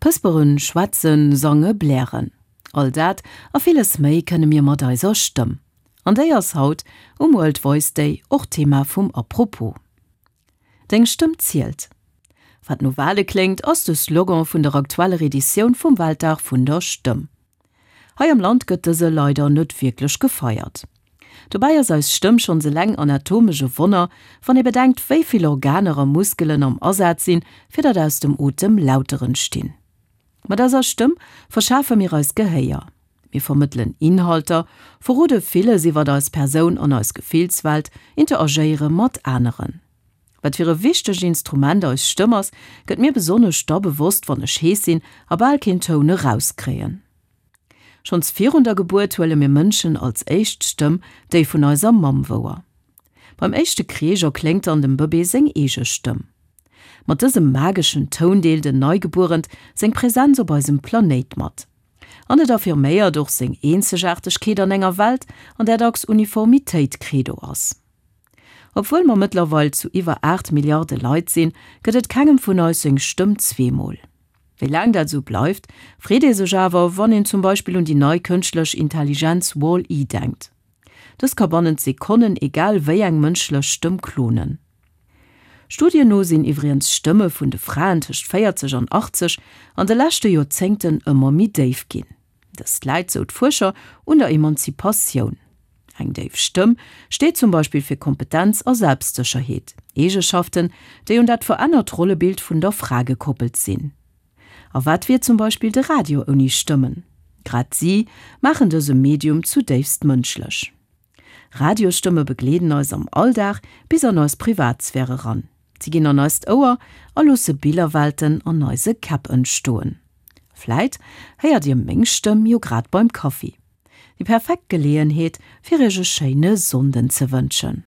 Pësperen, schwätzen, sange, blären. All dat a villes méi kënne mir mat eiser Stëmm. An déi ass haut um World Voice Day och Thema vum Apropos. Deng Stëmm zielt. Wat no Wale kléngt, ass de Slogan vun der aktueller Editioun vum Weltdag vun der Stëmm. Hei am Land gëtt dëse leider net wierklech gefeiert. Dobäi ass eis Stëmm schonns eleng anatomesch e Wonner, wann ee bedenkt, wéi vill Organer a Muskelen am Asaz sinn, fir datt aus dem Otem Lauter entstinn. Mat eiser Stëmm verschafe mir eis Gehéier. Mir vermëttelen Inhalter, verrode villes iwwert eis Persoun an eis Gefillswelt, interagéiere mat aneren. Wat fir e wichtegt Instrument eis Stëmm ass, gëtt mir besonnesch da bewosst, wann ech hees sinn a bal keen Toun erauskréien. Schonns virun der Gebuert huele mir Mënschen als éischt d'Stëmm, déi vun eiser Mamm, wouer. Beim éischte Kreesch erkléngt dann dem Bëbee seng eege Stëmm. Mat dësem mageschen Toun deelt en Neigebuerent seng Präsenz op eisem Planéit mat. An et affirméiert och seng Eenzegaartegkeet an enger Welt, an där dacks Uniformitéit Credo ass. Obwuel mer mëttlerweil zu iwwer 8 Milliarde Leit sinn, gëtt et kengem vun eis seng Stëmm zweemol. Wéi laang dat esou bleift, freet ee sech awer, wann een zum Beispill un déi nei kënschtlech Intelligenz Wall-E denkt. Dës ka bannent Sekonnen egal wéi eng mënschlech Stëmm klonen. Studien no sinn iwwriens d'Stëmme vun de Fraen tëscht 40 an 80 an de leschte Joerzéngten ëmmer méi déif ginn. Dëst läit, sou d'Fuerscher, un der Emanzipatioun. Eng déif Stëmm steet zum Beispill fir Kompetenz a Selbstsécherheet, Eegeschaften, déi un dat verännert Rollebild vun der Fra gekoppelt sinn. A wat wier zum Beispill de Radio ouni Stëmmen? Grad si maachen dëse Medium zudéifst mënschlech. Radiosstëmme begleeden eis am Alldag bis an eis Privatsphär eran. Si ginn an eist Ouer a loosse Billerwelten an eise Käpp entstoen. Vläit héiert dir meng Stëmm jo grad beim Kaffi. Déi perfekt Geleeënheet fir iech e schéine Sonnden ze wënschen.